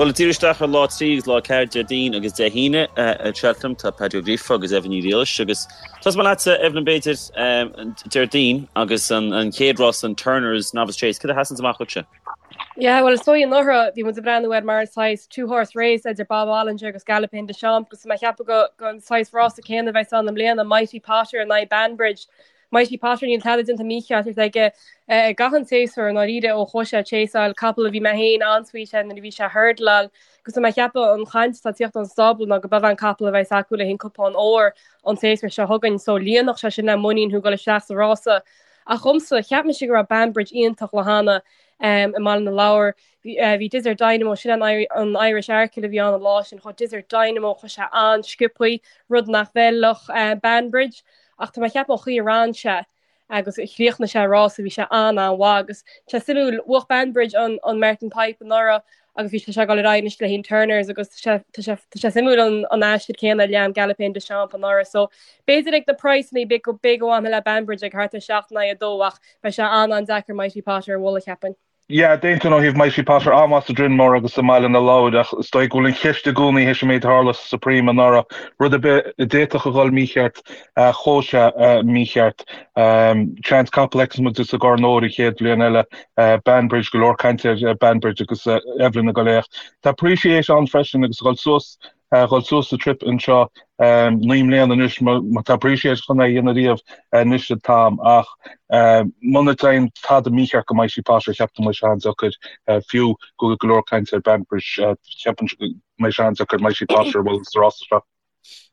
Bhuel, ag díriú isteach ar lá 3 agus lá 4, Déardaoin agus Dé hAoine i Cheltenham, tá Paddy Ó Gríofa agus Eibhlín Ní Ghriallais agus tosóidh mé leatsa, Eibhlín, b'fhéidir, Déardaoin agus an chéad rás, an Turners Novice Chase. Cad a sheasanns amach dhuitse? Yeah, bhuel, is dóigh anuraidh bhí muid ag breathnú air mar saghas two horse race idir Bob Olinger agus Galopin Des Champs agus tá mé ag ceapadh go go an saghas rása céanna a bheas ann i mbliana, Mighty Potter in aghaidh Banbridge. Mighty Potter níl tada déanta mícheart aige i gcaitheamh an tséasúir i ndáiríre ó chuaigh sé ag chaseáil capall a bhí mé féin an-sweet air nuair a bhí sé ag hurdleáil agus tá mé ag ceapadh an chaint atá ag tíocht ón stábla ná go b'é an capall a bheas acu le haghaidh an cupán óir an séasúr seo chugainn so líonfadh sé sin le muinín thú dul isteach sa rása. Ach dhomsa, cheap mise go raibh Banbridge iontach lá cheana i mBaile na Lobhar. Bhí Desert Dynamo, sin an Irish Arkle a bhí ann an lá sin, chuaigh Desert Dynamo, chuaigh sé an-sciobthaí, rud nach bhfeilfeadh Banbridge. Ach tá mé ag ceapadh an chaoi a ran sé agus a chríochnaigh sé an rása, bhí sé an-an-mhaith agus tá sé suimiúil, bhuaigh Banbridge an an Martin Pipe anuraidh agus bhí sé ag dul ar aghaidh anois le haghaidh an Turners agus tá sé tá sé tá sé suimiúil an an aistear céanna a lean Galopin Des Champs anuraidh. So b'fhéidir ag na praghsanna b'fhéidir go b'fhéidir go bhfanfainn le Banbridge ag thart ar 7 in aghaidh 2 ach beidh sé an-an-deacair Mighty Potter a bhualadh cheapfainn. Yeah, d'aontóinn ó thaobh Mighty Potter an-mhaith sa Drinmore agus i mBaile na Lobhar ach is dóigh go bhfuil an cheist i gcónaí théis an méid a tharla sa Supreme anuraidh, rud ar bith a d'fhéadfadh a dhul mícheart, chuaigh sé mícheart. Seans capall a fheicfeas muid sa gCorn Óir an chéad bhliain eile, Banbridge, go leor cainte ar Banbridge agus Evelyn ag dul é ach tá Appreciate ann freisin agus a dhul suas a dhul suas sa trip anseo 9 mbliana anois má tá Appreciate chun é a dhéanamh riamh anois an t-am ach muna dtéann tada mícheart go Mighty Potter cheapfainn go mbeidh sé an-deacair fiú go bhfuil go leor cainte ar Banbridge cheapfainn go mbeidh sé an-deacair Mighty Potter a bhualadh sa rása seo.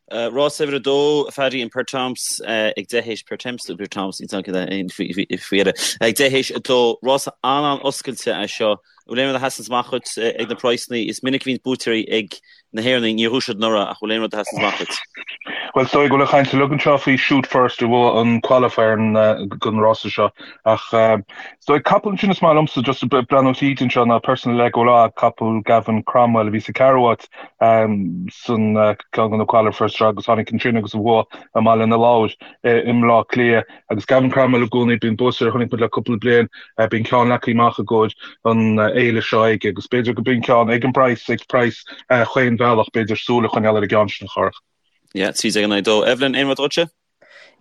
Rás uimhir a dó, a Phaddy, an Pertemps ag 10 théis Pertemps nó Pertemps faoi dheireadh ag 10 théis 2. Rás an-an-oscailte é seo. An bhfuil aon rud a sheasanns amach dhuit ag na praghsanna? Is minic a bhíonn buaiteoirí ag na hÉireannaigh, níor bhuaigh siad anuraidh ach bhfuil aon rud a sheasanns amach dhuit? Bhuel, is dóigh go bhfuil an chaint uilig anseo faoi Shoot First a bhuaigh an qualifier don rása seo ach is dóigh capall ansin is maith liomsa just breathnú tríd anseo ná Personal Legolas, capall Gavin Cromwell a bhí sa ceathrú háit san ceann de na qualifiers seo agus tháinig ansin agus a bhuaigh i mBaile na Lobhar i mBleá Cliath. Agus Gavin Cromwell i gcónaí, bíonn buaiteoir a chonaic muid le cúpla bliain, bíonn ceann leagtha amach i gcomhair an fhéile seo aige agus b'fhéidir go b'in ceann ag an bpraghas, ag praghas chaon bhealach, b'fhéidir súil a choinneáil ar an gceann sin a Chárthach. Yeah, 13 in aghaidh 2. Evelyn, aon rud dhuitse?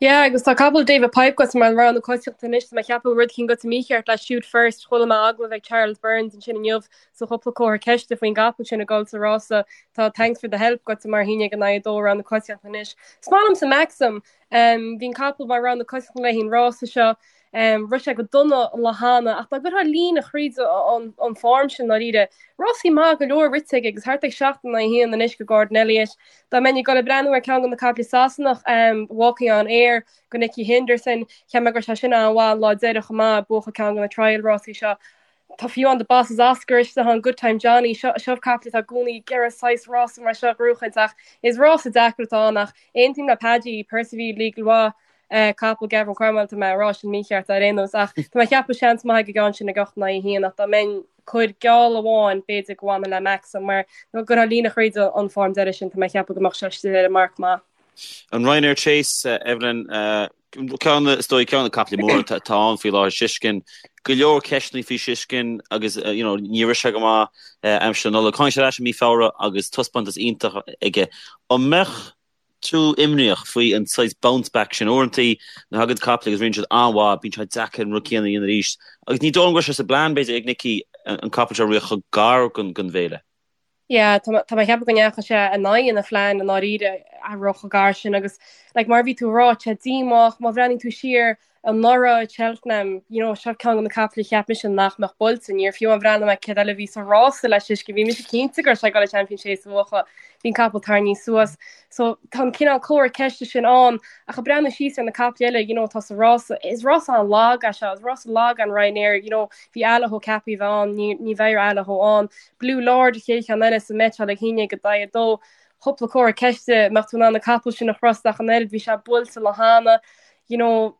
Yeah, agus tá capall David Pipe agat mar an rogha na coitianta anois, tá mé ag ceapadh rud eicínt goite mícheart le Shoot First, chuala mé agallamh ag Charles Byrnes ansin inniu so cúpla comhartha ceiste faoin gcapall sin ag dul sa rása. Tá Thanks for the Help goite mar 11 in aghaidh 2 rogha na coitianta anois. Is maith liomsa Maxim, Bhí an capall mar rogha na coitianta le haghaidh an rása seo. Rith sé go dona an lá cheana ach dá gcuirfeá líne thríd an form sin ndáiríre, rásaí maith go leor rite aige agus thart ag 7 in aghaidh 1 anois go Gordon Elliott. Dá mbeinn ag dul ag breathnú ar ceann de na caiple Sasanach, Walking on Air go Nicky Henderson, cheap mé go raibh sé sin an-mhaith an lá deireadh chomh maith, buachan ceann de na trial rásaí seo. Tá fiú amháin The Boss Is Oscar istigh ann, Good Time Johnny, seo seo caiple atá i gcónaí ag iarraidh saghas rása mar seo a ghnóchaint ach is rása deacair atá ann ach aontaím le Paddy, Percival Legal capall Gavin Cromwell tá mé ag rá sin mícheart ar aon nós ach tá mé ag ceapadh seans maith ag an gceann sin ag 8 in aghaidh 1 ach dá mbeinn cur geall amháin b'fhéidir go bhfanfainn le Maxim mar dá gcuirfeá líne thríd an form deiridh sin tá mé ag ceapadh go mbeadh sé istigh ar an marc maith. An Ryanair Chase, Evelyn, Ceann, is dóigh, ceann de na caiple móra atá ann faoi láthair, Shishkin. Go leor ceisteanna faoi Shishkin agus, you know, ní raibh sé go maith aimsir na Nollag. Tháinig sé ar ais i mí Feabhra agus taispeántas iontach aige. An mbeadh tú imníoch faoi an saghas bounce back sin? Uaireantaí, nuair a thagann caiple agus ritheann siad an-mhaith, bíonn sé deacair an rud céanna a dhéanamh arís. Agus ní dóigh liom go raibh sé sa bplean, b'fhéidir, ag Nicky an capall seo a rith chomh gar don bhféile. Yeah, tá mé ag ceapadh go ndeachaigh sé in aghaidh a phlean i ndáiríre a rith chomh gar sin agus like mar a bhí tú ag rá, tá sé díomách má bhreathnaíonn tú siar anuraidh i Cheltenham, you know, seo ceann de na caiple a cheap mise nach mbeadh buailte, níor fiú amháin bhreathnaigh mé céard eile a bhí sa rása le Shishkin, bhí mise cinnte go raibh sé ag dul an Champion Chase a bhuachan, bhí an capall tarraingthe suas. So tá an cineál comhartha ceiste sin ann ach ag breathnú síos ar na caiple eile, you know, atá sa rása, is rása an-lag é seo, is rása lag an Ryanair, you know, bhí Allaho ceaptha a bheith ann, ní, ní bheidh Allaho ann. Blue Lord an chéad cheann eile sa mbeiteáil ag 11 in aghaidh 2. Cúpla comhartha ceiste, mbeadh tú in ann an capall sin a thrust ach an oiread, bhí sé buailte lá cheana, you know,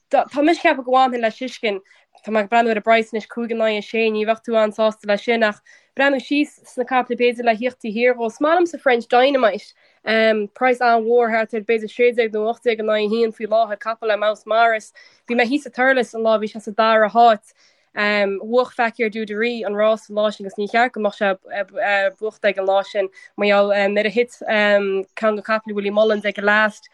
tá mise ag ceapadh go bhfanfainn le Shishkin, tá mé ag breathnú ar an bpraghas anois, 5 in aghaidh 6, ní bheadh tú an-sásta leis sin ach breathnú síos sna caiple b'fhéidir le thíocht taobh thiar dhó. Is maith liomsa French Dynamite, um, praghas an-mhór thart ar b'fhéidir 16 nó 18 in aghaidh 1 faoi láthair, capall le Mouse Morris. Bhí mé thíos i Thurles an lá bhí sé sa dara háit. Bhuach Fakir D'Oudairies an rás an lá sin agus ní cheart go mbeadh sé buachta ag an lá sin mar gheall nuair a thit ceann de chaiple Willie Mullins ag an last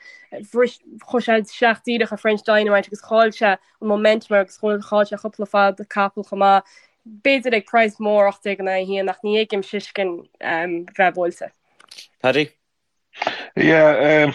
bhris chuaigh sé isteach díreach ar French Dynamite agus chaill sé an momentum agus chaill sé cúpla fad capall chomh maith. B'fhéidir ag praghas mór 18 in aghaidh 1 ach ní fheicim Shishkin bheith buailte. Paddy? Yeah,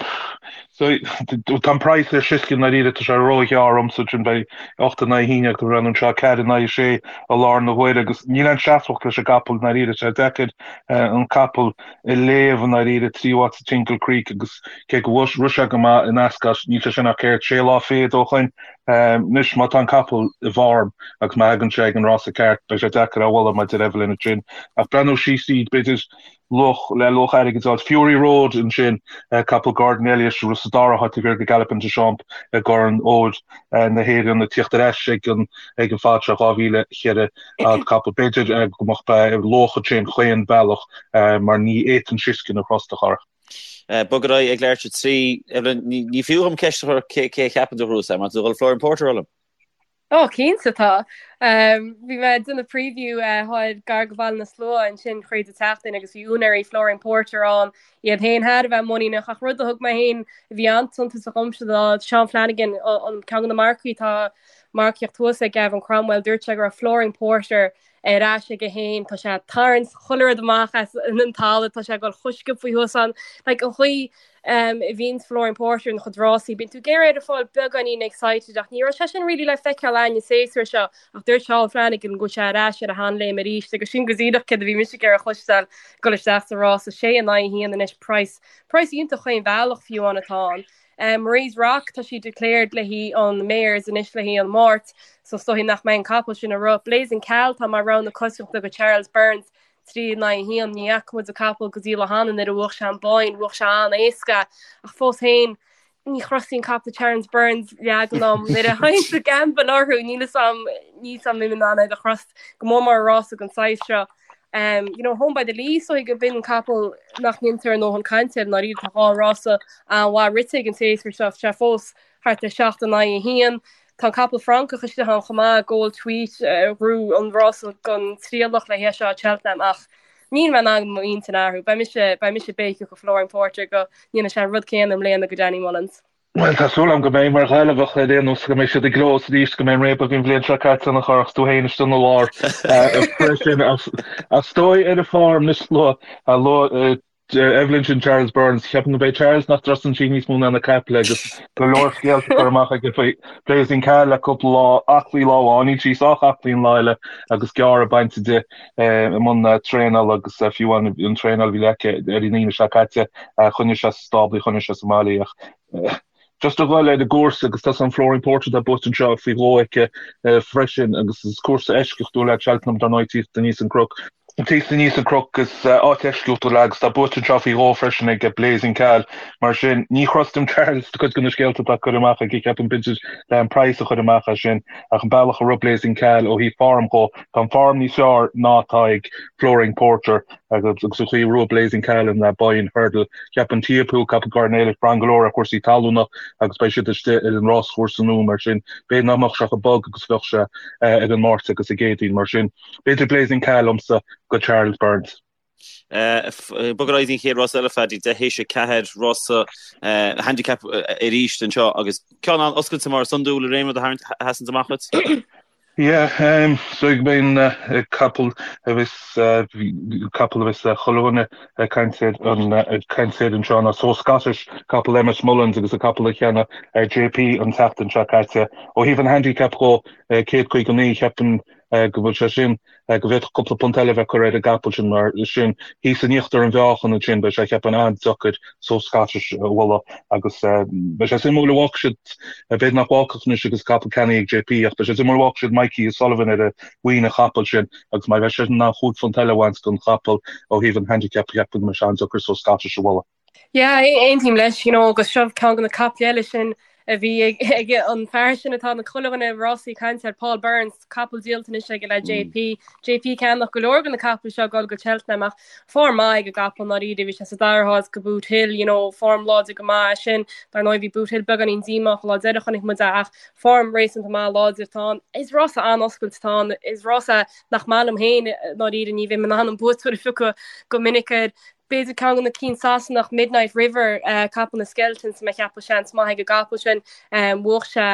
so tá an praghas ar Shishkin ndáiríre, tá sé róghearr dhomsa sin beidh 8 in aghaidh 1 ag breathnú anseo, 4 in aghaidh 6 i láthair na huaire agus níl aon seasmhacht leis an gcapall ndáiríre, tá sé deacair an capall a léamh i ndáiríre tríú háit sa Tingle Creek agus cé go bhfuil rith sé go maith in Ascot níl sé sin ach céard sé lá fichead ó shoin. Anois má tá an capall i bhform agus má thagann sé ag an rása ceart beidh sé deacair é a bhualadh mar a deir Evelyn ansin ach breathnú síos tríd b'fhéidir luach le luach airgid a fháil. Fury Road ansin, capall Gordon Elliott a rith sa dara háit taobh thiar de Galopin Des Champs i gCorn Óir na hÉireann ag tíocht ar ais ag an ag an fad seo 2004 capall. B'fhéidir go mbeadh luach ansin chaon bealach mar ní fhéadfainn Shishkin a thrust a chara. Bog ar aghaidh ag leathuair tar éis a 3. Evelyn, ní fiú dhom ceist a chur cé a cheapann tú a ghnóthós é, mar tá tú ag dul Flooring Porter a rá liom. Ó, cinnte tá. Bhí mé ag déanamh preview thoir gar go Bhaile na Slua ansin thríd an tseachtain agus bhí úinéirí Flooring Porter ann, iad féin thar a bheith muiníneach ach rud a thug mé féin a bhí an-suntasach dhomsa ná Sean Flanagan, an ceann de na marcaigh atá marcaíocht thuas ag Gavin Cromwell, dúirt sé go raibh Flooring Porter ar ais aige féin, tá sé ag tarraingt chuile rud amach as an talamh, tá sé ag dul chomh sciobtha thuas ann. Like an chaoi a bhíonns Flooring Porter ina chuid rásaí, bíonn tú ag iarraidh air a fáil beagáinín excited ach ní raibh sé sin really le feiceáil againn an séasúr seo ach dúirt Sean Flanagan go bhfuil sé ar ais ar a sheanléim arís agus sin go díreach céard a bhí mise ag iarraidh a chloisteáil ag dul isteach sa rása. Sé in aghaidh a haon anois praghas, praghas iontach chaon bhealach fiú amháin atá ann. Marie's Rock, tá sí declared le haghaidh an Mares anois le haghaidh an Máirt, so is dóigh nach mbeidh an capall sin ag rith. Blazing Khal, tá mar rogha na coitiantachta do Charles Byrnes, 3 in aghaidh 1. Ní fhaca muid an capall go dtí le hanna nuair a bhuach sé an Boyne, bhuach sé an-éasca, ach fós féin, ní thrustfainn capall Charles Byrnes leagan am nuair a théann sa gamble orthu, níl fhios a'm, níl fhios a'm an mbeinn in ann iad a thrust go mór mór i rása den saghas seo. Um, you know, Home by the Lee is dóigh go b'in an capall nach ndéantar a ndóthain cainte air ndáiríre tá dhá rása an-mhaith rite aige an séasúr seo, sé fós thart ar 7 in aghaidh 1. Tá an capall Francach istigh ann chomh maith, Gold Tweet, a ghnóthaigh an rása don trialach le haghaidh seo Cheltenham ach níl mé in ann m'intinn a athrú. Beidh mise, beidh mise béiceach do Flooring Porter go ndéanfaidh sé an rud céanna i mbliana go Danny Mullins. Bhuel, tá súil agam go mbeidh, mar Ghaillimheach ar aon nós, go mbeidh siad i gclós arís, go mbeidh an réabadh a bhí an bhliain seo caite ann a chara agus tú féin istigh ina lár freisin. Ach is dóigh ar an form anois luaigh Evelyn sin Charles Byrnes, ceapaim go mbeidh Charles nach dtrustann sí níos mó ná na caiple agus go leor scéalta curtha amach aige faoi Blazing Khal le cúpla lá, aclaí lá amháin, níl sí sách aclaí an lá eile agus gearradh bainte di i mbun traenála agus fiú an traenáil a bhí aici ar an Aoine seo caite, choinnigh sé sa stábla í, choinnigh sé sa mbaile í ach just a dhul ar an gcúrsa agus tá an Flooring Porter atá buaite anseo faoi dhó aici freisin agus is cúrsa eisceachtúil é Cheltenham dar ndóigh tíocht aníos an cnoc. Tíocht aníos an cnoc is áit eisceachtúil é agus tá buaite anseo faoi dhó freisin ag Blazing Khal. Mar sin ní thrustaim Charles do cuid de na scéalta atá curtha amach aige ceapaim b'fhéidir le an praghas a chur amach as sin ach an bealach a rith Blazing Khal ó thaobh form dhó tá an form níos fearr ná atá ag Flooring Porter agus an chaoi a raibh Blazing Khal in Boyne Hurdle. Cheapfainn Teahupoo, capall Gordon Elliott, braitheann go leor ar chúrsaí talúna agus beidh siad istigh ar an ráschúrsa nua mar sin b'fhéidir nach mbeadh sé chomh bog agus a bheadh sé ar an Máirt agus an gCéadaoin mar sin b'fhéidir Blazing Khal liomsa go Charles Byrnes. Bog ar aghaidh don chéad rás eile, Phaddy, deich théis 4, rása handicap arís anseo agus ceann an-oscailte mar is iondúil, an raibh aon rud a sheasann amach duit? Yeah, so go mbeidh capall a bheas capall a bheas chuile dhuine ag caint air an ag caint air anseo ná So Scottish, capall Emmet Mullins agus an capall a cheannaigh JP an tseachtain seo caite. Ó thaobh an handicap dhó, 159, cheapfainn go bhfuil sé sin go bhféadfadh cúpla punt eile a bheith curtha ar an gcapall sin mar sin thíos in íochtar an mheáchain ansin beidh sé cheapfainn an-deacair So Scottish a bhualadh agus beidh sé suimiúil an bhfágfaidh siad, b'fhéidir nach bhfágfadh anois agus capall ceannaithe ag JP ach beidh sé suimiúil an bhfágfaidh siad Mikey O'Sullivan ar mhuin an chapaill sin agus má bheidh sé in ann chúig phunt eile a bhaint den chapall ó thaobh an handicap cheapfainn go mbeidh sé an-deacair So Scottish a bhualadh. Yeah, aontaím leis, you know, agus seo ceann de na caiple eile sin. A bhí ag an fear sin atá na chuile dhuine rásaí ag caint air, Paul Burns, capall díolta anois aige le JP. JP ag ceannach go leor de na capaill seo ag dul go Cheltenham ach form maith ag an gcapall i ndáiríre, bhí sé sa dara háit go Boothill, you know, form láidir go maith é sin. Dar ndóigh bhí Boothill beagáinín díomách an lá deireadh chonaic muid é ach form réasúnta maith láidir atá ann. Is rása an-oscailte atá ann, is rása nach maith liom féin i ndáiríre, ní bheinn in ann an buaiteoir a phiocadh go minic air. B'fhéidir ceann de na cinn Sasanach, Midnight River, capall na Skeltons, mé ag ceapadh seans maith ag an gcapall sin. Bhuaigh sé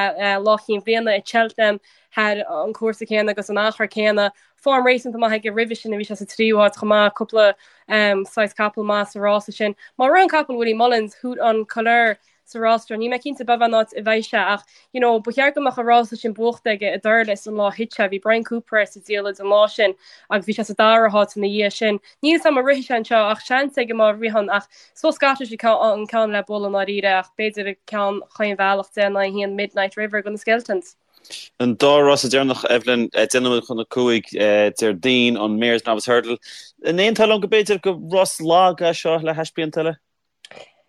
Lá Chinn Bhliana i Cheltenham thar an cúrsa céanna agus an achar céanna. Form réasúnta maith aige roimhe sin, bhí sé sa tríú háit chomh maith, cúpla saghas capall maith sa rása sin. Má ritheann capall Willie Mullins, Haut En Couleurs, sa rás seo. Níl mé cinnte b'fhéidir an áit a bheidh sé ach you know ba cheart go mbeadh an rása sin buachta aige i dTurlas an lá a thit sé. Bhí Bryan Cooper air sa diallait an lá sin agus bhí sé sa dara háit ina dhiaidh sin. Níl 'fhios a'm an rithfidh sé anseo ach seans aige má ritheann ach So Scottish an ceann le bualadh i ndáiríre ach b'fhéidir an ceann chaon bhealach 10 in aghaidh 1 Midnight River do na Skeltons. An dá rása deireanach, Evelyn, 10 nóiméad chun 5 Déardaoin, an Mares Novice Hurdle. An aontófá liom go b'fhéidir gur rás lag é seo le hais blianta eile?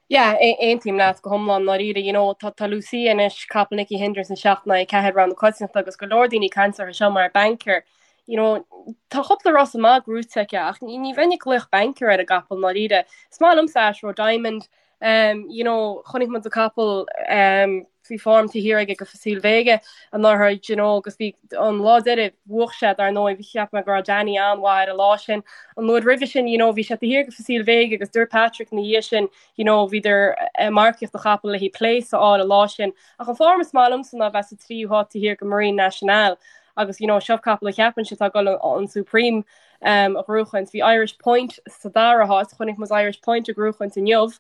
Yeah, aontaím leat go hiomlán, i ndáiríre. You know, tá tá Lucia anois, capall Nicky Henderson 7 in aghaidh 4 rogha na coitiantachta agus go leor daoine ag caint uirthi seo mar banker. You know, tá cúpla rása maith gnóite aici ach ní ní bheinn ag glaoch banker ar an gcapall i ndáiríre. Is maith liomsa Ashroe Diamond, um, you know, chonaic muid an capall um, bhí form taobh thiar aige go Facile Vega anuraidh, you know, agus bhí an lá deiridh bhuaigh sé dar ndóigh, bhí cheap mé go raibh Danny an-mhaith ar an lá sin. An uair roimhe sin, you know, bhí sé taobh thiar go Facile Vega agus dúirt Patrick ina dhiaidh sin, you know, bhíodar ag marcaíocht an chapaill le haghaidh place a fháil an lá sin. Ach an form is maith liomsa ná bheith sa tríú háit taobh thiar go Marine Nationale agus, you know, seo capall a cheapainnse atá ag dul an Supreme um, a ghnóchaint. Bhí Irish Point sa dara háit, chonaic muid Irish Point ag gnóchaint inniu.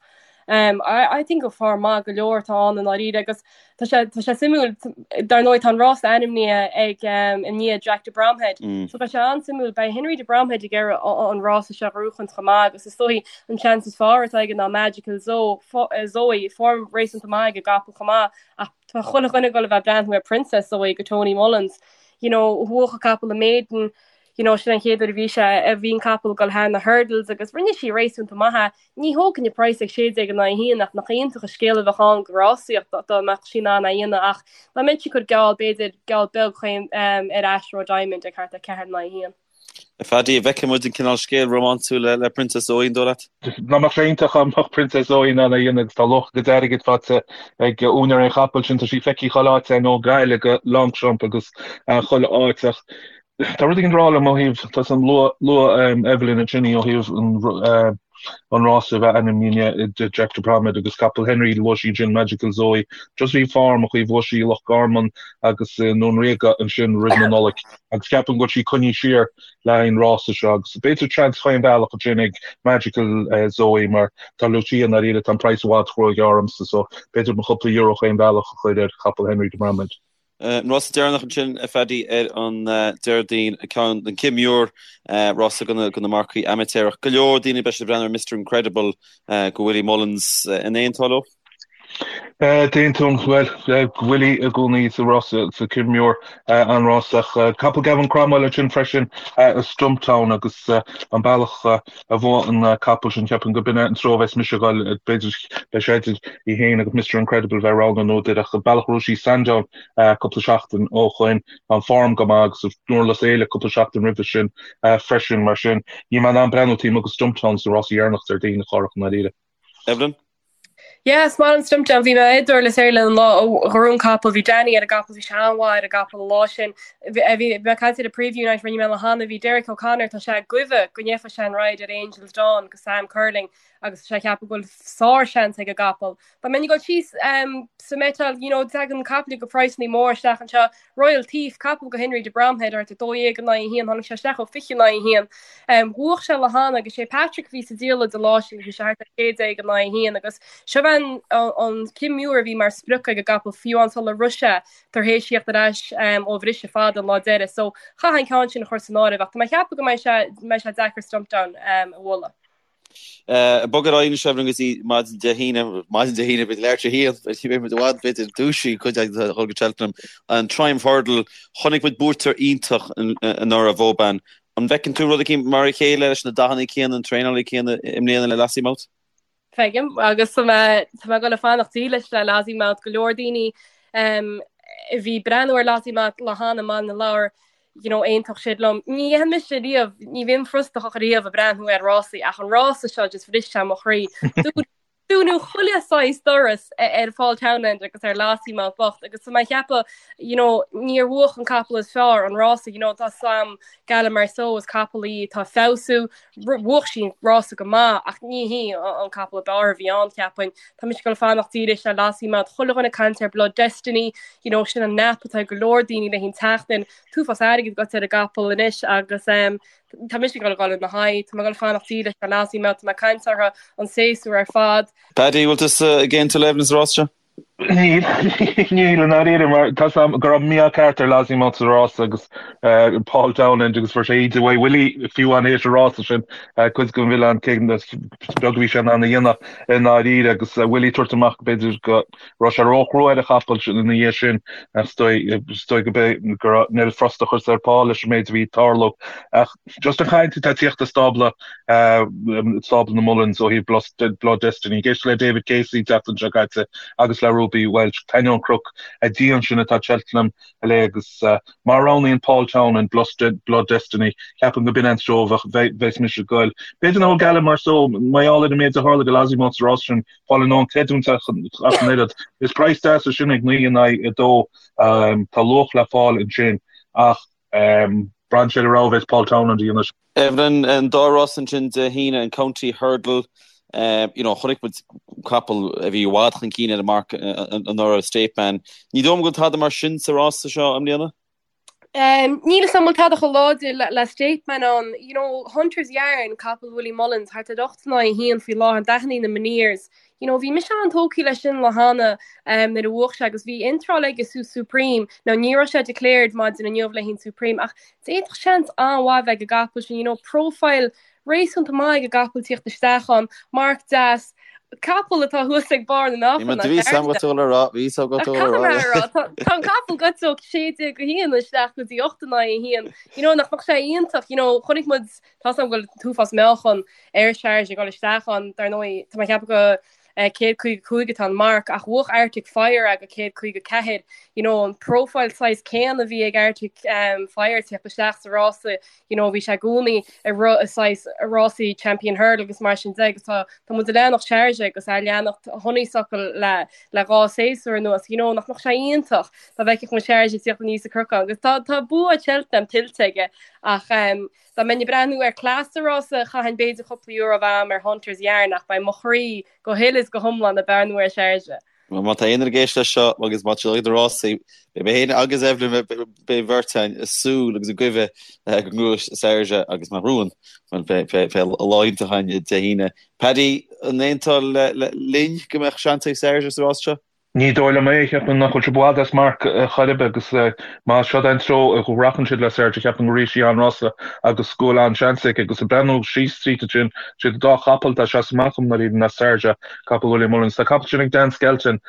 Um, I, I think go form maith go leor atá ann i ndáiríre agus tá sé, tá sé suimiúil, dar ndóigh tá an rás ainmnithe ag um, i ndiaidh Jack de Bromhead. Mm. So beidh sé an-suimiúil, beidh Henry de Bromhead ag iarraidh an rás seo a ghnóchaint chomh maith agus is dóigh an seans is fearr atá aige ná Magical Zoe, fo, eh, Zoe form réasúnta maith ag an gcapall chomh maith ach tá chuile dhuine ag dul a bheith ag breathnú ar Princess Zoe go Tony Mullins. You know, bhuaigh an capall an Maiden, you know, sin an chéad uair a bhí sé a bhí an capall ag dul thar na hurdles agus rinne sí réasúnta maith é. Ní thógfainn an praghas ag 16 in aghaidh 1 ach nach iontach an scéal a bheadh ann go rásaíocht dá mbeadh sí in ann é a dhéanamh ach dá mbeinnse ag cur geall b'fhéidir geall beag chaon ar Ashroe Diamond ag thart ar 4 in aghaidh 1. A Phaddy, an bhfeicfidh muid an cineál scéal rómánsúil le Princess Zoe an dóigh leat? Nach mbeadh sé iontach dá mbeadh Princess Zoe in ann é a dhéanamh agus tá luach a gcuid airgid faighte ag úinéir an chapaill sin. Tá sí feicthe chuile áit ó Ghaillimh go Longchamp agus chuile áit ach Tá rud éigin ag rá liom ó thaobh, tá san luaigh Evelyn ansin í ó thaobh an rása a bheith ainmnithe i ndiaidh Jack de Bromhead agus capall Henry, luaigh sí ansin Magical Zoe, just bhí form aici, bhuaigh sí i Loch Garman agus i nDún Ríoga ansin roimh na Nollaig agus ceapaim go bhfuil sí coinnithe siar le haghaidh an rása seo agus b'fhéidir seans chaon bhealach ansin ag Magical Zoe mar tá Lucia i ndáiríre, tá an praghas i bhfad róghearr ormsa so b'fhéidir mo chúpla euro chaon bhealach a chur ar chapall Henry de Bromhead. An rása deireanach ansin, a Phaddy, ar an Déardaoin, ceann den Kim Muir, rása do na marcaigh amaitéarach. Go leor daoine beidh siad ag breathnú ar Mister Incredible go Willie Mullins. An aontófá leo? D'aontóinn, bhuel, Willie i gcónaí sa rása sa Kim Muir, an rás ach capall Gavin Cromwell ansin freisin, Stumptown agus an bealach a bhuaigh an capall sin, ceapaim go b'in é an treo a bheas mise ag dul, b'fhéidir, beidh sé idir í féin agus Mister Incredible bheith roghnú nó idir ach an bealach a raibh sí Sandown cúpla seachtain ó shoin, tá an form go maith agus i nDurlas Éile cúpla seachtain roimhe sin freisin, mar sin níl mé in ann breathnú taobh amuigh de Stumptown sa rása dheireanach Déardaoin a Chárthach i ndáiríre. Evelyn? Yeah, is maith liom Stumptown. Bhí mé i nDurlas Éile an lá a ghnóthaigh an capall. Bhí Danny ar an gcapall, bhí sé an-mhaith ar an gcapall an lá sin. Bhí bhí mé ag caint ar an preview night rinne mé le hAnna, bhí Derek O'Connor, tá sé ag goimhe go ndéanfaidh sé an ride ar Angel's Dawn go Sam Curling agus tá sé ag ceapadh go bhfuil sár-seans ag an gcapall. Dá mbeinn ag dul síos sa mhetal, you know, tagann caiple go praghsanna mór isteach anseo. Royal Thief, capall go Henry de Bromhead, thart ar 12 in aghaidh 1, tháinig sé isteach ó 20 in aghaidh 1. Bhuach sé lá cheana agus sé Patrick a bhí sa diallait an lá sin, bhí sé thart ar 16 in aghaidh 1 agus seo an an Kim Muir a bhí mar sprioc ag an gcapall fiú amháin sular rith sé tar éis theacht ar ais ó bhriseadh fada an lá deiridh. So chaithfeá an ceann sin a chur san áireamh ach tá mé ag ceapadh go mbeidh sé mbeidh sé deacair Stumptown a bhualadh. Bog ar aghaidh anois Evelyn go dtí maidin Dé hAoine, maidin Dé haoine, b'fhéidir leathuair tar éis a haon, beidh muid i bhfad, b'fhéidir dúisithe cuid againn a dhul go Cheltenham. An Triumph Hurdle, chonaic muid buaiteoir iontach anuraidh, Vauban. An bhfeiceann tú rud eicínt mar a chéile leis na dathanna céanna, an traenálaí céanna i mbliana le Lossiemouth? Feicim agus tá mé tá mé ag dul a fanacht dílis le Lossiemouth go leor daoine um, a bhí breathnú ar Lossiemouth lá cheana i mBaile na Lobhar you know, aontódh siad liom. Ní dhéanfaidh mise riamh, ní bhím frustrach riamh ag breathnú ar rásaí ach an rása seo just bhris sé mo chroí. Dúnadh chuile saghas doras ar Paul Townend agus ar Lossiemouth bocht agus tá mé ag ceapadh you know, níor bhuach an capall is fearr an rása, you know, tá sam Gala Marceau is capall í atá ag feabhsú, bhuach sí an rása go maith ach ní hí an capall ab fhearr a bhí ann cheapfainn. Tá mise ag dul fanacht dílis le Lossiemouth, chuile dhuine ag caint ar Blood Destiny, you know, sin an nap atá ag go leor daoine le haghaidh an tseachtain, an t-uafás airgid agat ar an gcapall anois agus um, Tá mise ag dul a dhul ina haghaidh, tá mé ag dul fanacht dílis le Lossiemouth, tá mé ag caint orthu an séasúr ar fad. Paddy, bhfuil tusa ag aontú le Evelyn sa rás seo? Níl, níl i ndáiríre mar tá 's a'm go raibh mí-ádh ceart ar Lossiemouth sa rás agus Paul Townend agus fuair sé íde uaidh Willie fiú amháin théis an rása sin cuid den mhilleán cé is beag a bhí sé in ann a dhéanamh i ndáiríre agus Willie tabhairt amach b'fhéidir go raibh sé róchrua ar an chapall ina dhiaidh sin ach is dóigh go b'é go raibh an oiread frustrachas ar Paul leis an méid a bhí ag tarlú. Ach just an chaint atá ag tíocht as stábla stábla na Mullins ó thaobh Blood Destiny. Ag éisteacht le David Casey an tseachtain seo caite agus le Ruby Walsh, d'ainneoin cnoc dian sin atá Cheltenham le agus má roghnaíonn Paul Townend Blood Destiny, ceapaim go b'in an treo a bheas mise ag goil. B'fhéidir nach bhfuil Gala Marceau, mar gheall ar an méid a tharla do Lossiemouth sa rás sin, fáil in ann creidiúint ach an oiread. Is praghas deas é sin ag 9 in aghaidh 2. Tá luach le fáil ansin ach braitheann sé ar an rogha a bheas Paul Townend a dhéanamh. Evelyn, an dá rás ansin Dé hAoine, an County Hurdle, you know, chonaic muid capall a bhí i bhfad chun cinn ar an marc anuraidh, State Man. Ní dóigh liom go bhfuil tada mar sin sa rása seo i mbliana? Níl 'fhios a'm an bhfuil tada chomh láidir le State Man ann. You know, Hunter's Yarn, capall Willie Mullins, thart ar 8 in aghaidh 1 faoi láthair, dathannaí na Menieres. You know, bhí mise an-tógtha leis sin lá cheana nuair a bhuach sé agus bhí iontráil aige sa Supreme. Now ní raibh sé declared maidin inniu le haghaidh an Supreme ach d'fhéadfadh seans an-mhaith bheith ag an gcapall sin, you know, profile réasúnta maith ag an gcapall tíocht isteach ann, marc deas, capall atá thuas ag barr na meáchan. Bhí 'fhios a'm go tú le rá, bhí 'fhios a'm go tú le rá. Tá an capall gaibhte ó 16 go 1 isteach go dtí 8 in aghaidh 1. You know, nach mbeadh sé iontach, you know, chonaic muid, tá 'fhios a'm go bhfuil an t-uafás meáchan ar Charge ag dul isteach ann, dar ndóigh, tá mé ag ceapadh go 155 atá an marc ach bhuach Arctic Fire é go 154. You know, an profile saghas céanna a bhí ag Arctic um, Fire tíocht isteach sa rása, you know, bhí sé i gcónaí ag rith i saghas rásaí Champion Hurdle agus mar sin de agus tá tá muid ag leanacht Charge agus ag leanacht Honeysuckle le le dhá séasúr anuas, you know, nach mbeadh sé iontach dá bhfeicfeadh muid Charge ag tíocht aníos an cnocán agus tá tá bua Cheltenham tuillte aige ach um, Dá mbeinn ag breathnú ar cleas sa rása, chaithfinn b'fhéidir cúpla euro a bheith a'm ar Hunters Yarn ach beidh mo chroí go huile is go hiomlán ag breathnú ar Charge. Má tá aon duine ag éisteacht leis seo agus má tá siad ag na rásaí, beidh mé féin agus Evelyn, beidh an bheirt againn ag súil agus ag guí go ngnóthóidh Sarja agus má ghnóthaíonn, bhuel, beidh lá iontach againn Dé hAoine. Paddy, an aontófá linn go mbeadh seans ag Sarja sa rás seo? Ní dóigh liom é, cheapfainn nach bhfuil sé i bhfad as marc chor ar bith agus más seod é an treo a rachann siad le Sarja, cheapfainn go rithfidh sí an-rása agus go bhfuil an-seans aici. Agus ag breathnú síos tríd ansin, siad an dá chapall atá ag seasamh amach dom i ndáiríre ná Sarja, capall Willie Mullins. Tá capall sin ag Dan Skelton,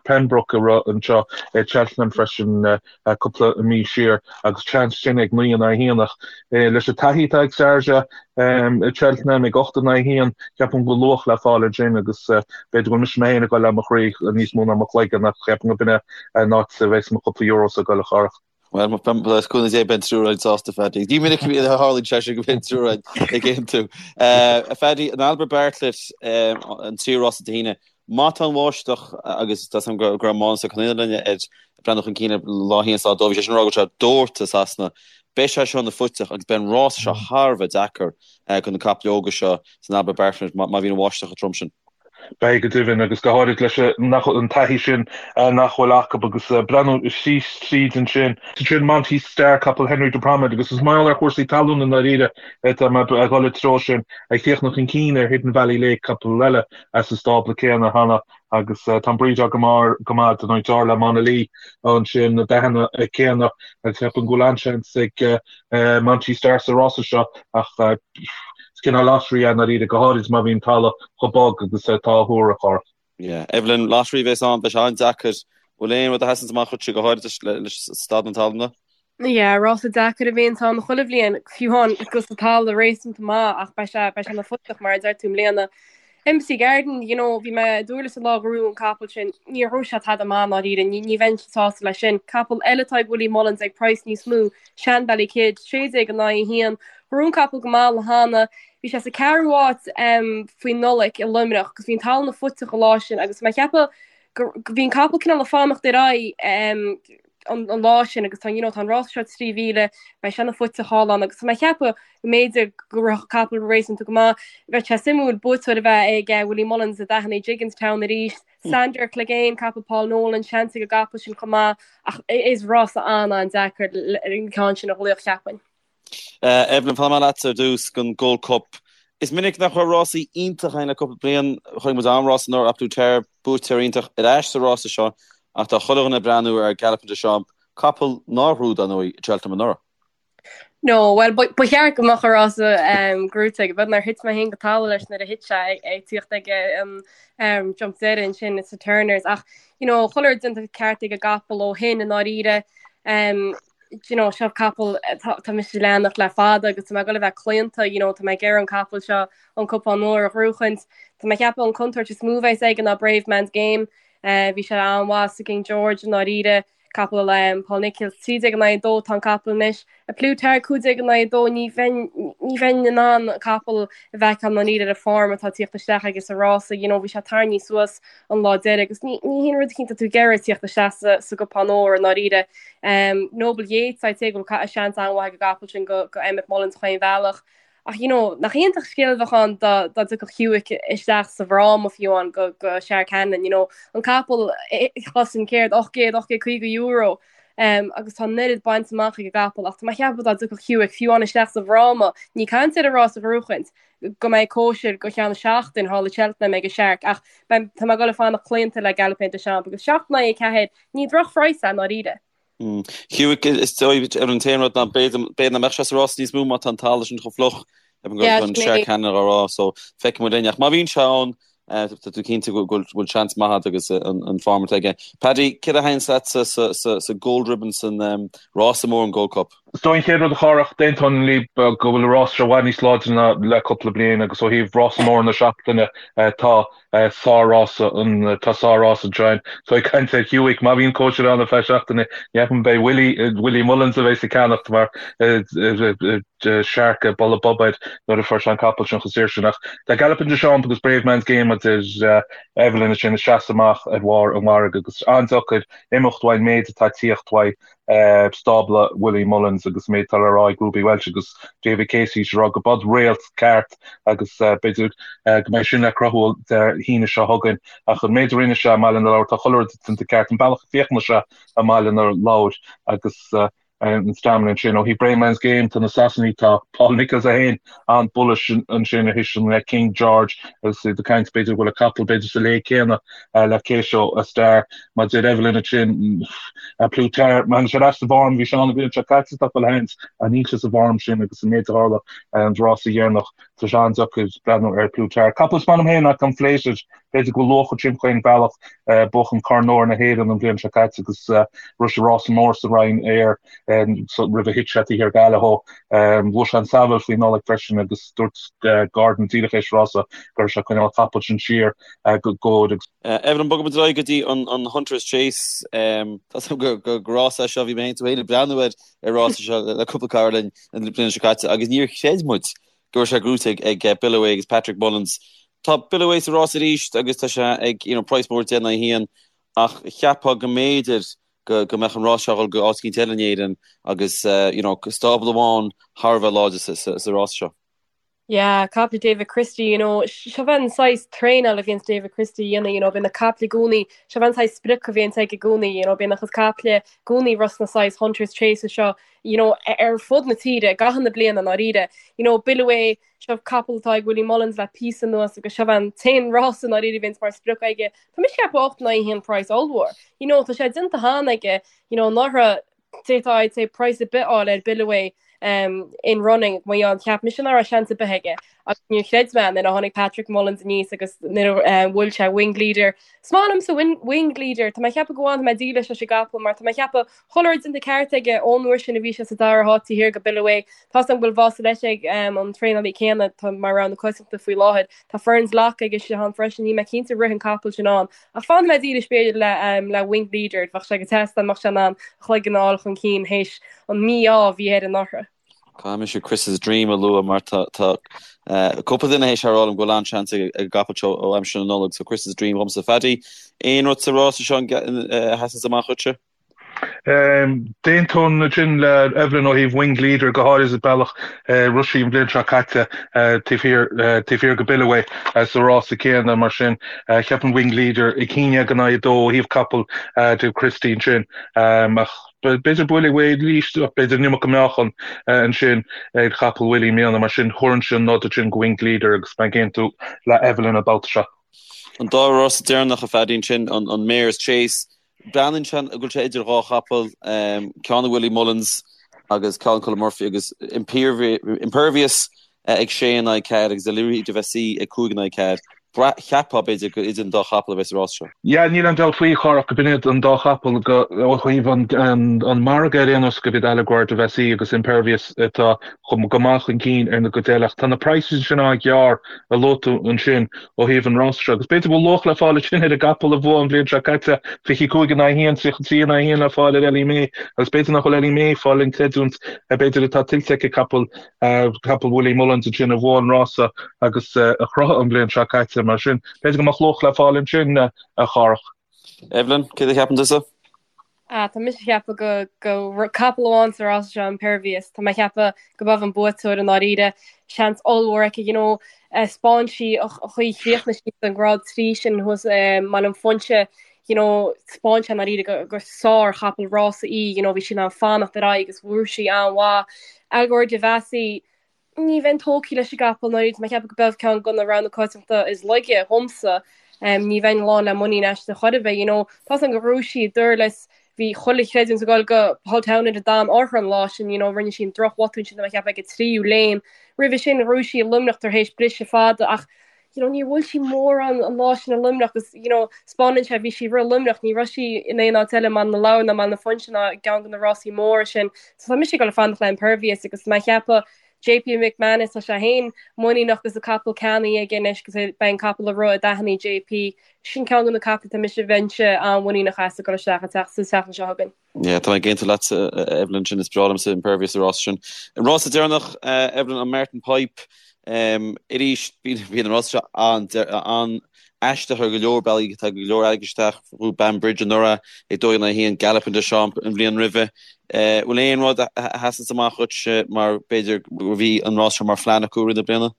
Pembroke a rith anseo i Cheltenham freisin. cúpla mí siar agus seans sin ag 9 in aghaidh 1 ach leis an taithí atá ag Sarja i Cheltenham ag 8 in aghaidh 1 ceapaim go bhfuil luach le fáil ansin agus b'fhéidir go bhfuil mise mé féin ag dul le mo chroí níos mó ná mo chloigeann ach ceapaim go b'in é an áit a bheas mo chúpla euros ag dul a Chárthach. Bhuel, le cúnamh Dé beidh an triúr againn sásta, Phaddy. Ní minic a tharlaíonn sé sin go mbíonn an triúr againn ag aontú. A Phaddy, an Albert Bartlett, an tríú rása Dé hAoine, Má tá an bháisteach, agus tá 's agam go raibh Mánas Ó Conaola ag breathnú chun cinn ar lá 1 is lá 2, bhí sé sin ag rá go raibh sé ag doirteadh i Sasana, beidh sé seo ina phuiteach agus beidh an rás seo thar a bheith deacair do na caiple óga seo san Albert Bartlett má bhíonn an bháisteach chomh trom sin. Beidh go deimhin, agus go háirid leis an taithí sin nach bhfuil acu agus breathnú síos tríd ansin. Sin Monty Star, capall Henry de Bromhead, agus is mar gheall ar chúrsaí talún i ndáiríre atá mé ag dul i dtreo sin, ag tíocht chun cinn ar Hidden Valley Lake, capall eile as an stábla céanna cheana agus tá an brídeáil go maith go maith don deartháir le Monalee ansin na dathanna céanna agus ceapaim go bhfuil an-seans ag Monty Star sa rása seo ach is cineál lottery é i ndáiríre, go háirid má bhíonn talamh chomh bog agus atá á thuar a Chárthach. Yeah. Evelyn, lottery a bheas ann, beidh sé an-deacair. Bhfuil aon rud a sheasanns amach dhuitse go háirid leis staid na talúna? Yeah, rása deacair a bhíonns ann chuile bhliain, fiú amháin agus an talamh réasúnta maith ach beidh sé beidh sé ina phuiteach mar a deir tú i mbliana. Embassy Garden, you know, bhí mé i nDurlas an lá a ghnóthaigh an capall sin, níor ghnóthaigh sé tada maith i ndáiríre, ní, ní bheinn sásta leis sin. Capall eile atá ag Willie Mullins ag praghas níos mó, Shanbally Kid, 16 in aghaidh 1. Ghnóthaigh an capall go maith le hAnna. Bhí sé sa ceathrú háit um, faoin Nollaig i Luimneach agus bhí an talamh fuiteach an lá sin agus mé ag ceapadh go, go bhí an capall cineál ag fanacht ar aghaidh um, an, an lá sin agus tá, you know, tá an rás seo 3,000, beidh sé ana fuiteach thall ann agus tá mé ag ceapadh go mb'fhéidir go rithfeadh an capall réasúnta go maith. Bheadh sé suimiúil buaiteoir a bheith ag Willie Mullins a d'aithnigh Gigginstown arís. Sandor Clegane, capall Paul Nolan, seans ag an gcapall sin chomh maith ach is rása an-an-deacair an ceann sin a ghlaoch cheapfainn. Evelyn, fanfaidh mé leatsa ar dtús don Gold Cup. Is minic nach raibh rásaí iontach againn le cúpla bliain. Chonaic muid an-rás anuraidh, A Plus Tard, buaiteoir iontach ar ais sa rása seo ach tá chuile dhuine ag breathnú ar Galopin Des Champs, capall nár ghnóthaigh, dar ndóigh, i Cheltenham anuraidh. No, bhuel, ba cheart go mbeadh an rása gnóthaithe aige, beag nár thit mé féin go talamh leis nuair a thit sé ag tíocht ag an jump deiridh ansin sa Turners ach, you know, chuile rud déanta ceart ag an gcapall ó shin i ndáiríre. Um, you know, seo capall tá mise ag leanacht le fada agus tá mé ag dul a bheith claonta, you know, tá mé ag iarraidh an capall seo an cupán óir a ghnóchaint. Tá mé ag ceapadh an contúirt is mó a bheas aige ná Bravemansgame. Uh, bhí sé an-mhaith sa King George i ndáiríre. Capall um, Paul Nicholls 13 in aghaidh 2 tá an capall anois. A Plus Tard 15 in aghaidh 2 ní bheinn ní bheinn in ann an capall a bhfeiceáil i ndáiríre ar an form atá tíocht isteach aige sa rása, you know, bhí sé tarraingthe suas an lá deiridh agus ní ní haon rud eicínt atá tú ag iarraidh tíocht isteach sa sa gcupán óir i ndáiríre. Um, Noble Yeats, I'd say go bhfuil seans an-mhaith ag an gcapall sin go go Emmet Mullins chaon bhealach. Ach you know, nach iontach scéal a bheadh ann dá dá dtiocfadh Hewick isteach sa bhfráma fiú amháin go go Shark Hanlon, you know, an capall chosain céard 800, 850 euro um, agus tá an oiread bainte amach ag an gcapall ach tá mé ag ceapadh dá dtiocfadh Hewick fiú amháin isteach sa bhfráma, ní caint ar an rás a ghnóchaint, go mbeidh cóisir go ceann seachtain thall i Cheltenham ag an Shark ach beidh tá mé ag dul ag fanacht claonta le Galopin Des Champs agus 7 in aghaidh 4 ní drochphraghas é i ndáiríre. Hewick, is dóigh ar an t-aon rud ná b'fhéidir nach mbeadh sé sa rás níos mó má tá an talamh sin chomh fliuch an Shark Hanlon á rá so feicfidh muid linn. Ach má bhíonn sé ann tá tú cinnte go bhfuil seans maith agat agus an form atá aige. Paddy, céard a thaitníonns leatsa sa Gold Ribbon san rása mór an Gold Cup? Is dóigh an chéad rud a Chárthach, d'aontóinn libh go bhfuil an rás seo i bhfad níos láidre ná le cúpla bliain agus ó thaobh rása mór na seachtaine tá sár-rása an tá sár-rás anseo. So ag caint ar Hewick, má bhíonn cóisir ann ar feadh seachtaine, ní cheapaim beidh Willie, Willie Mullins a bheidh ag ceannacht mar Shark ag boladh bob air nuair a fuair sé an capall sin chomh saor sin. Ach tá Galopin Des Champs agus Bravemansgame a deir Evelyn ansin ag seasamh amach ar bharr an mhargaidh agus an-deacair imeacht uaidh an méid atá ag tíocht uaidh. stábla Willie Mullins agus an méid atá le rá ag Ruby Walsh agus David Casey ag rá go b'eod réalt ceart agus b'fhéidir go mbeidh sin le cruthú Dé hAoine seo chugainn ach an méid a rinne sé i mBaile na Lobhar tá chuile rud déanta ceart an bealach a féachann sé i mBaile na Lobhar agus an stamina ansin. Ó thaobh Bravemansgame tá na Sasanaigh tá Paul Nicholls é féin an-bullish ansin a thuiseann le King George agus iad ag caint b'fhéidir go bhfuil an capall b'fhéidir sa léig céanna le Kauto Star. Mar a deir Evelyn ansin, A Plus Tard, má thagann sé ar ais sa bhform, bhí sé ann an bhliain seo caite tá chuile sheans ach níl sé sa bhform sin agus an méid a tharla an rása dheireanach, tá sé an-deacair breathnú ar Plus Tard. Capall is maith liom féin ná Conflated, b'fhéidir go bhfuil luach ag timpeall chaon bhealach, buachan Corn Óir na hÉireann an bhliain seo caite agus rith sé rása mór sa Roinn Air roimh a thit sé taobh thiar d'Allaho. Bhuaigh sé an Saville faoi Nollaig freisin agus dúirt Gordon díreach éis rása go raibh sé ag coinneáil an capall sin siar go góir agus Evelyn, bogfaidh muid ar aghaidh go dtí an Hunters Chase. Tá a fhios agam gur rás é seo, bhí mé féin tú féin ag breathnú ar an rás seo le cúpla cara linn an bhliain seo caite agus níor chreid muid go raibh sé gnóthaithe ag Billaway agus Patrick Mullins. Tá Billaway sa rás arís agus tá sé ag you know, praghas mór 10 in aghaidh 1 ach cheapfá go mb'fhéidir go go mbeadh an rás seo ag dul go áit eicínt eile in Éirinn agus you know, stábla amháin thar a bheith láidir sa, sa, sa rás seo. Yeah, caiple David Christie, you know, seo é an saghas traenáil a bhíonns David Christie a dhéanamh, you know, bíonn na caiple i gcónaí, seo é an saghas sprioc a bhíonns aige i gcónaí, you know, bíonn a chuid caiple i gcónaí ag rith sna saghas Hunters Chases seo, you know, ar fud na tíre, i gcaitheamh na bliana i ndáiríre. You know, Billaway, seo capall atá ag Willie Mullins le píosa anuas agus seo é an t-aon rás i ndáiríre a bhíonns mar sprioc aige. Tá mise ag ceapadh 8 in aghaidh 1 praghas ollmhór. You know, tá sé déanta cheana aige, you know, anuraidh, d'fhéadfá I'd say praghas ar bith a fháil ar Billaway. In running mar gheall cheap mise nach raibh seans ar bith aige agus níor chreid mé nuair a tháinig Patrick Mullins aníos agus nuair a bhuail sé Winged Leader. Is maith liomsa Winged Leader, tá mé ag ceapadh go bhfanfaidh mé dílis leis an gcapall mar tá mé ag ceapadh chuile rud déanta ceart aige ón uair sin a bhí sé sa dara háit taobh thiar go Billaway. Tá's agam go bhfuil Vaucelet ag an traenálaí céanna atá mar rogha na coitiantachta faoi láthair. Tá Ferns Lock aige istigh ann freisin, níl mé cinnte rith an capall sin ann ach fanfaidh mé dílis b'fhéidir le le Winged Leader, bheadh sé go deas dá mbeadh sé in ann a chloigeann a fháil chun cinn théis an mí-ádh a bhí air anuraidh. Caithfidh mise Chris's Dream a lua mar tá cúpla duine théis a rá liom go bhfuil an-seans ag an gcapall seo ó aimsir na Nollag, so Chris's Dream dhomsa. Phaddy, aon rud sa rása seo a sheasanns amach dhuitse? D'aontóinn ansin le Evelyn ó thaobh Winged Leader, go háirithe an bealach a rith sí an bhliain seo caite taobh thiar taobh thiar go Billaway sa rása céanna. Mar sin, cheapfainn Winged Leader 11 in aghaidh 2 ó thaobh capall Dave Christie ansin. Ach b'fhéidir buailfidh Wade arís, ach b'fhéidir an iomarca meáchan ansin ag capall Willie i mbliana. Mar sin, thabharfainnse an nod ansin go Winged Leader agus mé ag aontú le Evelyn an babhta seo. An dá rás deireanach a Phaddy ansin, an Mares Chase Breathnaíonn sé go bhfuil sé idir dhá chapall, ceann ag Willie Mullins agus ceann ag Colm Murphy agus Impervious ag 6 in aghaidh 4 agus Elleury de Vesci ag 5 in aghaidh 4. Cheapfá, b'fhéidir, gur idir an dá chapall a bheas an rás seo. Yeah, níl aon dabht faoi, a Chárthach, go b'in iad an dá chapall go, ó thaobh an margaidh ar aon nós, go b'iad Allegoire de Vesci agus Impervious atá go maith chun cinn ar na cuid eile. Ach tá na praghsanna sin an-ghearr a luaigh tú ansin. ó thaobh an rása seo agus b'fhéidir go bhfuil luach le fáil ansin ar an gcapall a bhuaigh an bhliain seo caite, 25 in aghaidh 1, 33 in aghaidh 1 le fáil ar Ellie May agus b'fhéidir nach bhfuil Ellie May ag fáil an creidiúint b'fhéidir atá tuillte aici capall capall Willie Mullins ansin a bhuaigh an rása agus a chruthaigh an bhliain seo caite mar sin b'fhéidir go mbeadh luach le fáil ansin a Chárthach. Evelyn, céard a cheapann tusa? Ah, tá mise ag ceapadh go go capall amháin sa rása seo Impervious. Tá mé ag ceapadh go b'é an buaiteoir i ndáiríre. Seans ollmhór aici, you know, 'spáin sí an chaoi chríochnaigh sí an grád 3 sin thuas i mBaile an Phúinse, you know, 'spáin sé i ndáiríre go gur sár chapall rása í, you know, bhí sí in ann fanacht ar aghaidh agus bhuaigh sí an-mhaith. Allegoire de Vesci, Ní bheinn tógtha leis an gcapall i ndáiríre, tá mé ag ceapadh go b'é ceann de na roghanna coitianta is laige dhomsa. Ní bheinn lán le muinín aisti chor ar bith, you know. Tá's agam gur ghnóthaigh sí i nDurlas, bhí chuile chreidiúint ag dul go Paul Townend a d'fhan orthu an lá sin, you know, rinne sí an drochbhotún sin tá mé ag ceapadh ag an tríú léim. Roimhe sin ghnóthaigh sí i Luimneach tar éis briseadh fada ach you know, níor bhuail sí mórán an lá sin i Luimneach agus, you know, 'spáineann sé, bhí sí ag rith i Luimneach, ní raibh sí in aon áit eile i mBaile na Lobhar ná mBaile na Fuinse ná i gceann de na rásaí móra sin. So tá mise ag dul ag fanacht le Impervious agus tá mé ag ceapadh JP McManus, tá sé féin muiníneach agus an capall ceannaithe aige anois agus beidh an capall ag rith i dtaithí JP. Sin ceann de na caiple tá mise bheinnse an-mhuiníneach as ag dul isteach an tseachtain seo chugainn. Yeah, tá mé ag aontú leatsa, Evelyn, sin is breá liomsa Impervious sa rása sin. An rása deireanach, Evelyn, an Martin Pipe, arís, bíonn an rása seo an-aisteach ar go leor bealaí, tá go leor airgid isteach, bhuaigh Banbridge anuraidh ag 2 in aghaidh 1, Galopin Des Champs an bhliain roimhe. Bhfuil aon rud a sheasanns amach dhuit mar b'fhéidir go bhí an rás seo mar phlean acu i rith na bliana?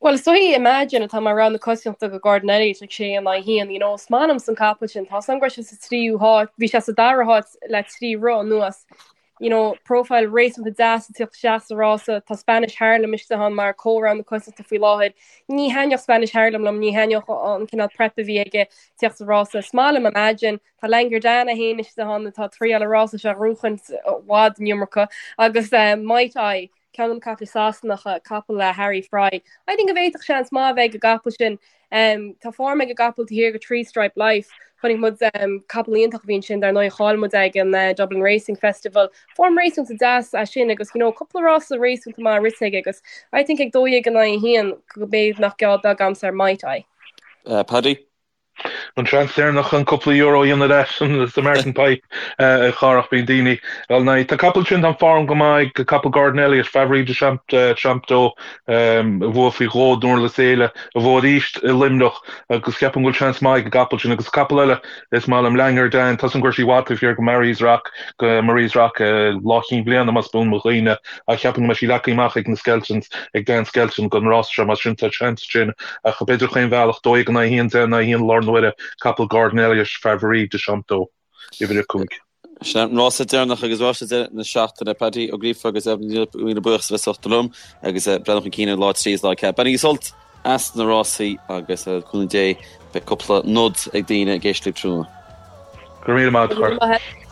Bhuel, is dóigh Imagine atá mar rogha na coitiantachta do Gordon Elliott ag 6 in aghaidh 1, you know, is maith liomsa an capall sin, tá's agam go raibh sé sa tríú háit, bhí sé sa dara háit le trí rith anuas, you know, profile réasúnta deas ag tíocht isteach sa rása, tá Spanish Harlem istigh ann mar comhrogha na coitiantachta faoi láthair, ní thaitneodh Spanish Harlem liom, ní thaitneodh an cineál prep a bhí aige tíocht sa rása, is maith liom Imagine, tá Langerdana féin istigh ann atá ag triail an rása seo a ghnóchaint i bhfad an iomarca agus eh, Might I, Ceann de na caiple Sasanacha, capall le Harry Fry. I think go bhféadfadh seans maith a bheith ag an gcapall sin. Tá form ag an gcapall taobh thiar de Three Stripe Life. Chonaic muid capall iontach a bhí ansin dar ndóigh, chaill muid ag an Dublin Racing Festival. Form réasúnta deas é sin agus you know cúpla rása réasúnta maith rite aige agus I think ag 12 in aghaidh 1 go b'fhéidir nach geall beag a'msa ar Might I. Paddy? An seans deireanach chun cúpla euro a dhéanamh leis sa Martin Pipe a Chárthach bíonn daoine dul ina aghaidh. Tá capall sin, tá form go maith ag capall Gordon Elliott, Favori de Champdó a bhuaigh faoi dhó i nDurlas Éile, a bhuaigh arís i Luimneach agus ceapaim go bhfuil seans maith ag an gcapall sin agus capall eile is maith liom Langer Dan, tá 's agam go raibh sí i bhfad taobh thiar go Marie's Rock, go Marie's Rock lá Chinn Bliana más buan mo chuimhne. Ach cheapfainn go mbeidh sí leagtha amach ag na Skeltons, ag Dan Skelton don rás seo, mar sin tá seans ansin. Ach b'fhéidir chaon bhealach, 12 in aghaidh 1, 10 in aghaidh 1 lár na huaire, capall Gordon Elliott, Favori de Champdó, uimhir 5. Sin an rása deireanach agus rása deireadh na seachtaine. Paddy Ó Gríofa agus Evelyn Ní Míle buíochas as bheith liom agus breathnú chun cinn ar lá 3 is lá 4. Bainigí sult as na rásaí agus le cúnamh Dé beidh cúpla nod ag daoine ag éisteacht libh tráthnóna. Go raibh míle maith agat, a Chárthaigh.